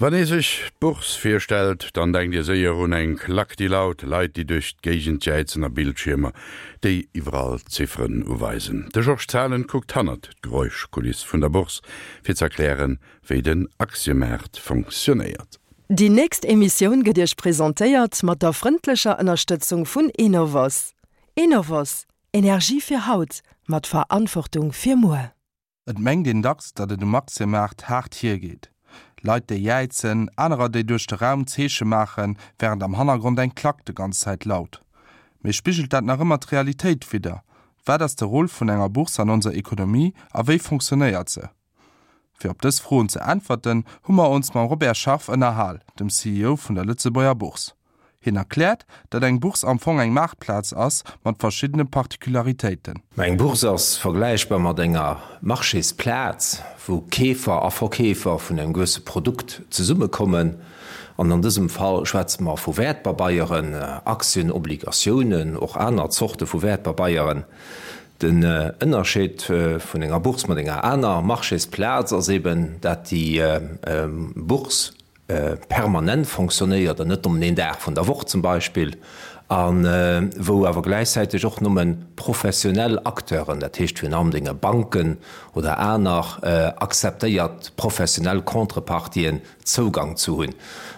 Wann ee sech d'Bourse virstellt, dann denkt ee séier un eng Klack, déi laut, Leit, déi duerch d'Géigend jäizen a Bildschiermer, déi iwwerall Zifferen uweisen. De Georges Zahlen kuckt hannert d'Geräuschkuliss vun der Bourse, fir z'erklären, wéi den Aktiemaart fonctionnéiert. Déi nächst Emissioun gëtt Iech presentéiert mat der frëndlecher Ënnerstëtzung vun Enovos. Enovos, Energie fir haut, mat Verantwortung fir muer. Et mengt een dacks, datt et um Aktiemaart haart hiergeet. Leit, déi jäizen, anerer, déi duerch de Raum Zeeche maachen, wärend am Hannergrond eng Klack de ganz Zäit laut. Mee spigelt dat nach ëmmer d'Realitéit widder? Wat ass de Rôle vun enger Bourse an onser Ekonomie a wéi fonctionnéiert se? Fir op dës Froen ze äntwerten, hu mer ons mam Robert Scharf ënnerhal, dem CEO vun der Lëtzebuerger Bourse. Hien erkläert, datt eng Bourse am Fong eng Maartplaz ass mat verschiddene Particularitéiten. Mä eng Bourse ass vergläichbar mat enger Marchésplaz, wou Keefer a Verkeefer vun engem gewësse Produkt zesummekommen. An an dësem Fall schwätze mer vu Wäertpabeieren, Aktien, Obligatiounen, och aner Zorte vu Wäertpabeieren. Den Ënnerscheed vun enger Bourse mat enger aner Marchésplaz ass eben, dat déi Bourse permanent fonctionnéiert an net nëmmen een Dag vun der Woch zum Beispill, a wou awer gläichzäiteg och nëmme professionell Acteuren, dat heescht virun allem denge Banken oder aner akzeptéiert professionell Contrepartien, Zougang zu hunn.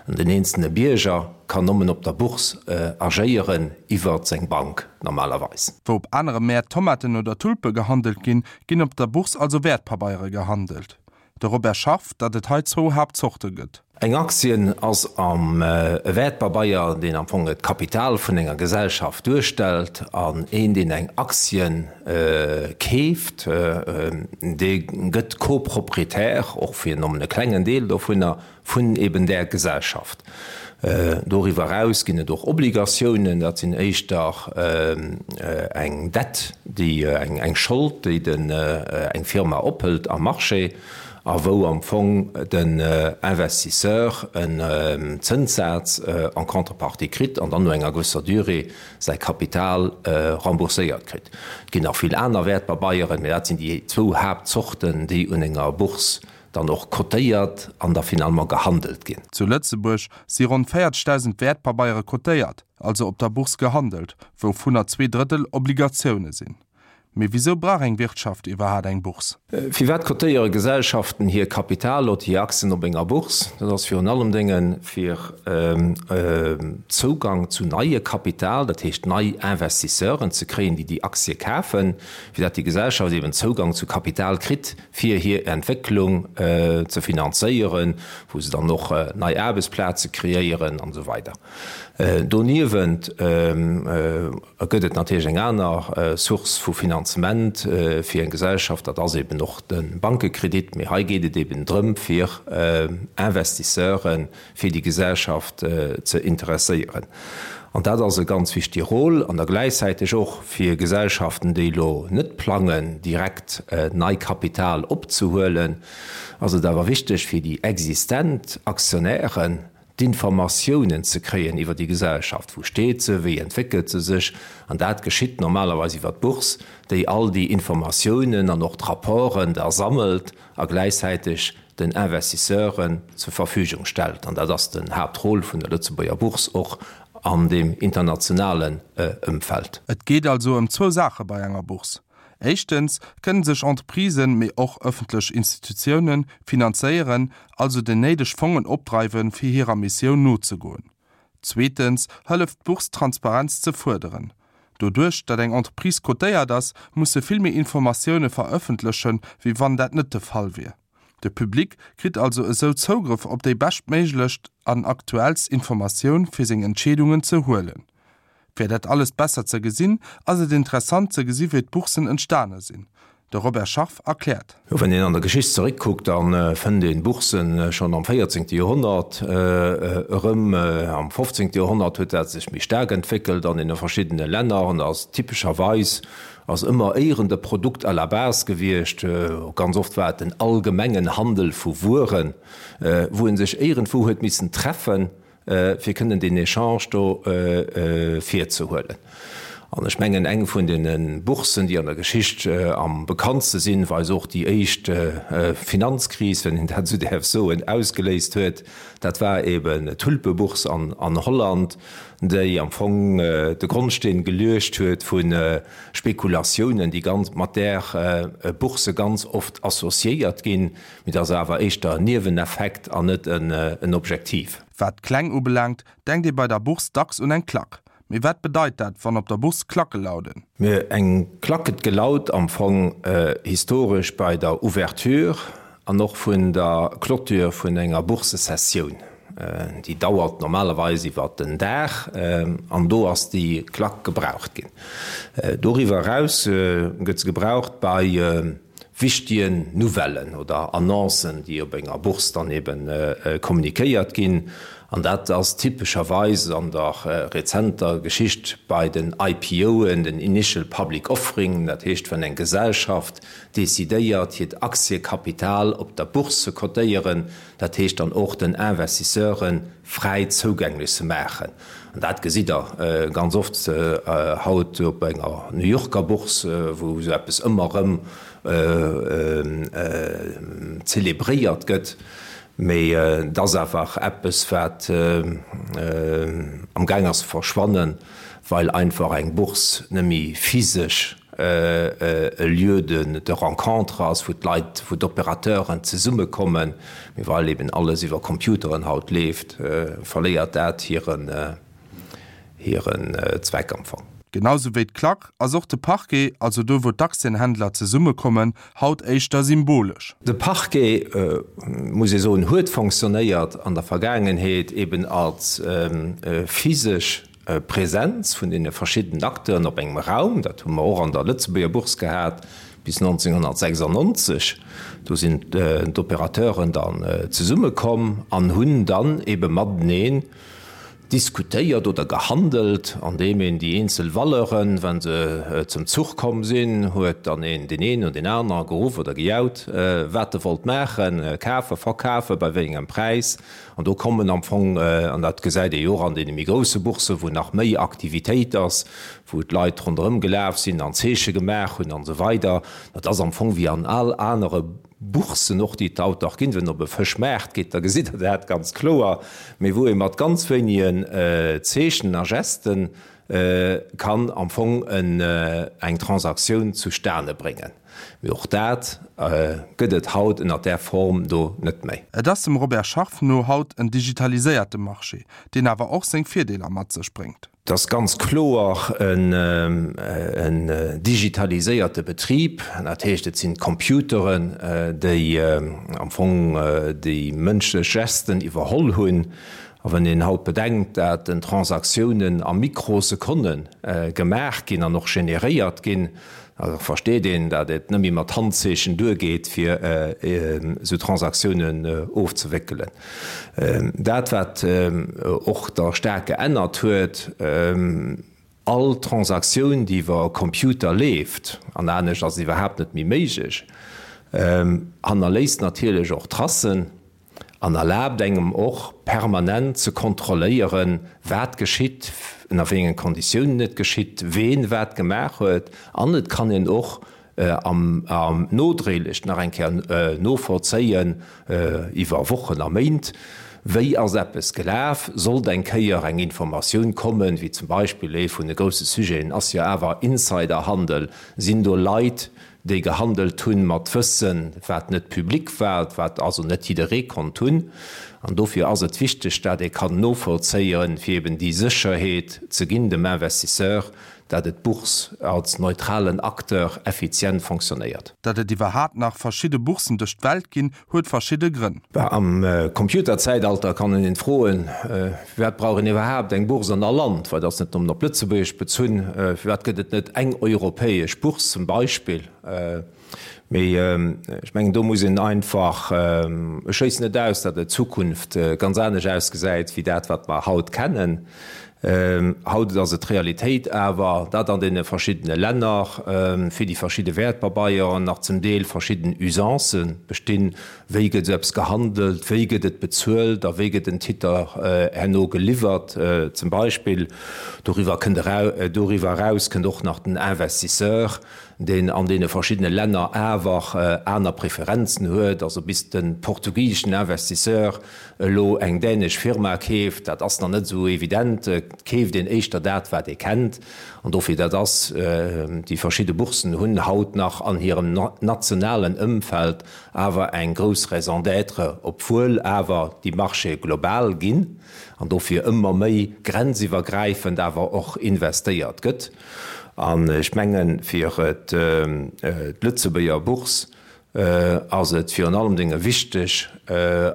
An den eenzelne Bierger kann nëmmen op der Bourse agéieren iwwer seng Bank normalerweis. Wou op anere Mäert Tomaten oder Tulpe gehandelt ginn, ginn op der Bourse also Wäertpabeiere gehandelt. De Robert Scharf, datt et hei zwou Haaptzorte gëtt. Eng Aktien ass am e Wäertpabeier, deen am Fong d'Kapital vun enger Gesellschaft duerstellt. An een, deen eng Aktien keeft, dee gëtt Co-Proprietär, och fir nëmmen e klengen Deel dovunner, vun eben där Gesellschaft. Doriwwer eraus ginn et och Obligatiounen, dat sinn éischter eng Dette, déi, eng Schold, déi den, eng Firma ophëlt am Marché a wou am Fong den Investisseur en Zënssaz en contrepartie kritt an dann no enger gewësser Durée säi Kapital rembourséiert kritt. Et ginn nach vill aner Wäertpabeieren, mä dat sinn déi zwou Haaptzorten, déi un enger Bourse dann och cotéiert an da finalement gehandelt ginn. Zu Lëtzebuerg si ronn 40.000 Wäertpabeiere cotéiert, also op der Bourse gehandelt, wouvunner 2 Drëttel Obligatioune sinn. Mee wisou brauch eng Wirtschaft iwwerhaat eng Bourse? Firwat cotéiere Gesellschaften hir Kapital oder hir Aktien op enger Bourse? Dat ass virun allem Dénge fir Zougang zu neie Kapital, dat heescht nei Investisseuren ze kréien, déi déi Aktie kafen, fir dat déi Gesellschaft eben Zougang zu Kapital kritt, fir hir Entwécklung ze finanzéieren, wou se dann och nei Aarbechtsplaze kreéieren an esou weider. Doniewent gëtt et natierlech eng aner Source vu Finanzement fir eng Gesellschaft, dat ass eben och de Bankekredit. Mee hei geet et eben drëm, fir Investisseuren fir déi Gesellschaft ze interesséieren. An dat ass e ganz wichtige Rôle. An da gläichzäiteg och fir Gesellschaften, déi elo net plangen, direkt nei Kapital opzehuelen, ass et awer wichteg fir déi existent Aktionären, d'Informatiounen ze kréien iwwer déi Gesellschaft. Wou steet se? Wéi entwéckelt se sech? An dat geschitt normalerweis iwwer d'Bourse, déi all déi Informatiounen an och d'Rapporten da sammelt a gläichzäiteg den Investisseuren zur Verfügung stellt. An dat ass den Haaptrôle vun der Lëtzebuerger Bourse och an deem internationalen Ëmfeld. Et geet also ëm zwou Saache bei enger Bourse. Éischtens kënnen sech Entreprisen, mee och ëffentlech Institutiounen, finanzéieren, also déi néideg Fongen opdreiwen, fir hirer Missioun nozegoen. Zweetens hëlleft d'Bourse Transparenz ze fuerderen. Doduerch, datt eng Entreprise cotéiert ass, muss se vill méi Informatioune verëffentlechen, wéi wann dat net de Fall wier. De Public kritt also esou Zougrëff op déi beschtméiglecht an aktuellst Informatioun fir seng Entscheedungen ze huelen. Fir dat alles besser ze gesinn, ass et interessant ze gesi wéi d'Boursen entstane sinn. De Robert Scharf erkläert. Jo, wann een an der Geschicht zeréckkuckt, da fënnt een Boursen schonn am véierzéngte Joerhonnert erëm. Am fofzéngte Joerhonnert huet dat sech méi staark entwéckelt an deene verschiddene Länner an ass typescherweis ass ëmmer éieren de Produkt à la base gewiescht. Ganz oft war et den allgemengen Handel vu Wueren, wou ee sech éierendwou huet missen treffen, fir kënnen deen Echange do virzehuelen. An ech mengen, eng vun deene Boursen, déi an der Geschicht am bekanntste sinn, wei se och déi éischt Finanzkris, wann een dat esou däerf soen, ausgeléist huet, dat war eben d'Tulpebourse an Holland, déi am Fong de Grondsteen geluecht huet vu Spekulatiounen, déi ganz mat där Bourse ganz oft associéiert ginn. Mee dat ass awer éischter en Nieweneffekt an net en Objektiv. Wat d'Kläng ubelaangt, denkt ee bei der Bourse dacks un eng Klack. Mee wat bedeit dat, wann op der Bourse Klacke lauden? Mee eng Klack gëtt gelaut am Fong historesch bei der Ouverture an och vun der Clôture vun enger Boursesessioun. Déi dauert normalerweis iwwer den Dag an do ass déi Klack gebraucht ginn. Doriwwer eraus gëtt se gebraucht bei wichtigen Nouvellen oder Annoncen, déi op enger Bourse dann eben kommunikéiert ginn. An dat ass typescherweis an der rezenter Geschicht bei den IPOen, den Initial Public Offering, dat heescht, wann eng Gesellschaft decidéiert, hiert Aktiekapital op der Bourse ze cotéieren, dat heescht dann och den Investisseure fräi zougänglech ze maachen. An dat gesitt Der ganz oft haut op enger New Yorker Bourse, wou esou eppes ëmmer erëm zelebréiert gëtt. Mee et ass awer eppes, wat amgaang ass ze verschwannen, well einfach eng Bourse net méi physesch e Lieu de rencontre ass, wou d'Leit, wou d'Opérateuren zesummekommen, mee well eben alles iwwer Computeren haut leeft, verléiert dat hiren Zweck am Fong. Genau sou wéi d'Klack ass och de Parquet, also do wou d'Aktienhändler zesummekommen, haut éischter symbolesch. De Parquet, muss ee soen, huet fonctionnéiert an der Vergaangenheet eben als physesch Präsenz vun deene verschiddenen Acteuren op engem Raum, dat hu mer och an der Lëtzebuerger Bourse gehat bis 1996, do sinn d'Opérateuren dann zesummekomm an hunn dann ebe mateneen diskutéiert oder gehandelt, andeem een déi eenzel Valeuren, wa se zum Zuch komm sinn, huet dann een deen een oder deen anere geruff oder gejaut, wat e wollt maachen, kafen, verkafen, bei wéi engem Präis. An do kommen am Fong, an dat gesäit ee jo och an deene méi grousse Boursen, wou nach méi Aktivitéit ass, wou d'Leit ronderëm gelaf sinn an Zeeche gemaach hunn an esou weider, dat ass am Fong wéi an all anere Boursen och, déi et haut nach ginn. Wann Der op e Fëschmaart geet, da gesitt Der dat ganz kloer, mee wou ee mat ganz wéinegen Zeechen a Gesten kann am Fong eng Transaktioun zustane bréngen. Mee och dat gëtt et haut ënner där Form do net méi. Et ass dem Robert Scharf no haut en digitaliséierte Marché, deen awer och seng Virdeeler mat sech bréngt. Et ass ganz kloer en digitaliséierte Betrib. Dat heescht, et sinn d'Computeren, déi am Fong déi mënschlech Gesten iwwerholl hunn. A wann een haut bedenkt, dat den Transaktiounen a Mikrosekonne gemaach ginn an och generéiert ginn, da versteet een, dat et net méi mat Handzeechen duergeet, fir esou Transaktiounen ofzewéckelen. Dat, wat och da staark geännert huet, All Transaktioun, déi iwwer e Computer leeft, an anescht ass et iwwerhaapt net méi méiglech, hannerléisst natierlech och Tracen an erlaabt engem och permanent ze kontrolléieren, wat geschitt, ënner wéi engen Konditiounen et geschitt, ween wat gemaach huet. An et kann een och am nodréiglech nach eng Kéier novollzéien, iwwer Wochen a Méint, wéi ass eppes gelaf, sollt eng Kéier eng Informatioun kommen, wéi zum Beispill ee vun de grousse Sujeten ass jo awer Insiderhandel, sinn do Leit, déi gehandelt hunn mat Wëssen, wat net public war, wat also net jidderee konnt hunn. An dofir ass et wichteg, dat ee kann novollzéien, fir eben déi Sécherheet ze ginn dem Investisseur, dat et d'Bourse als neutralen Acteur effizient fonctionnéiert. Datt et iwwerhaapt nach verschidde Boursen duerch d'Welt ginn, huet verschidde Grënn. Am Computerzäitalter kann een froen, Firwat brauch een iwwerhaapt eng Bourse an all Land? Well dat ass net nëmmen op Lëtzebuerg bezunn. Firwat gëtt et net eng europäesch Bourse zum Beispill? Mee ech mengen, do muss een einfach, ech schléissen net aus, datt et Zukunft ganz anescht ausgesäit wéi dat, wat mer haut kennen. Haut ass et d'Realitéit awer, datt an deene verschiddene Länner fir déi verschidde Wäertpabeieren nach zum Deel verschidden Usancë bestinn, Wéi gëtt esou eppes gehandelt, wéi gëtt et bezuelt a wéi gëtt en Titer herno geliwwert zum Beispill. Doriwwer kënnt doriwwer eraus kënnt och nach den Investisseur, deen an deene verschiddene Länner awer aner Preferenzen huet. Also bis de portugiseschen Investisseur elo eng dänesch Firma keeft, dat ass nach net esou evident. Et keeft een éischter dat, wat ee kennt. An dofir, dat ass, déi verschidde Boursen hunn haut nach an hirem nationalen Ëmfeld awer eng grouss Raison d'être, obwuel awer déi Marchéë global ginn an dofir ëmmer méi grenziwwergräifend awer och investéiert gëtt. An ech mengen, fir d'Lëtzebuerger Bourse ass et virun allem Dinge wichteg,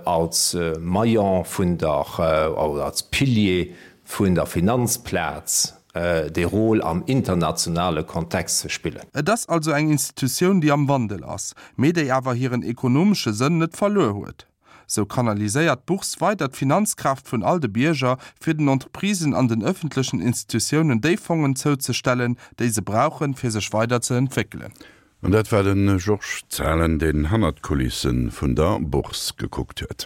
als Maillon vun der, oder als Pilier vun der Finanzplaz dee Rôle am internationale Kontext ze spillen. Et ass also eng Institutioun, déi am Wandel ass, mee déi awer hiren ekonomesche Sënn net verluer huet. Sou kanaliséiert d'Bourse weider d'Finanzkraaft vun all de Bierger, fir den Entreprisen an den ëffentlechen Institutiounen déi Fongen zouzestellen, déi se brauchen, fir sech weider ze entwéckelen. An dat war de Georges Zahlen, deen hannert d'Kulisse vun der Bourse gekuckt huet.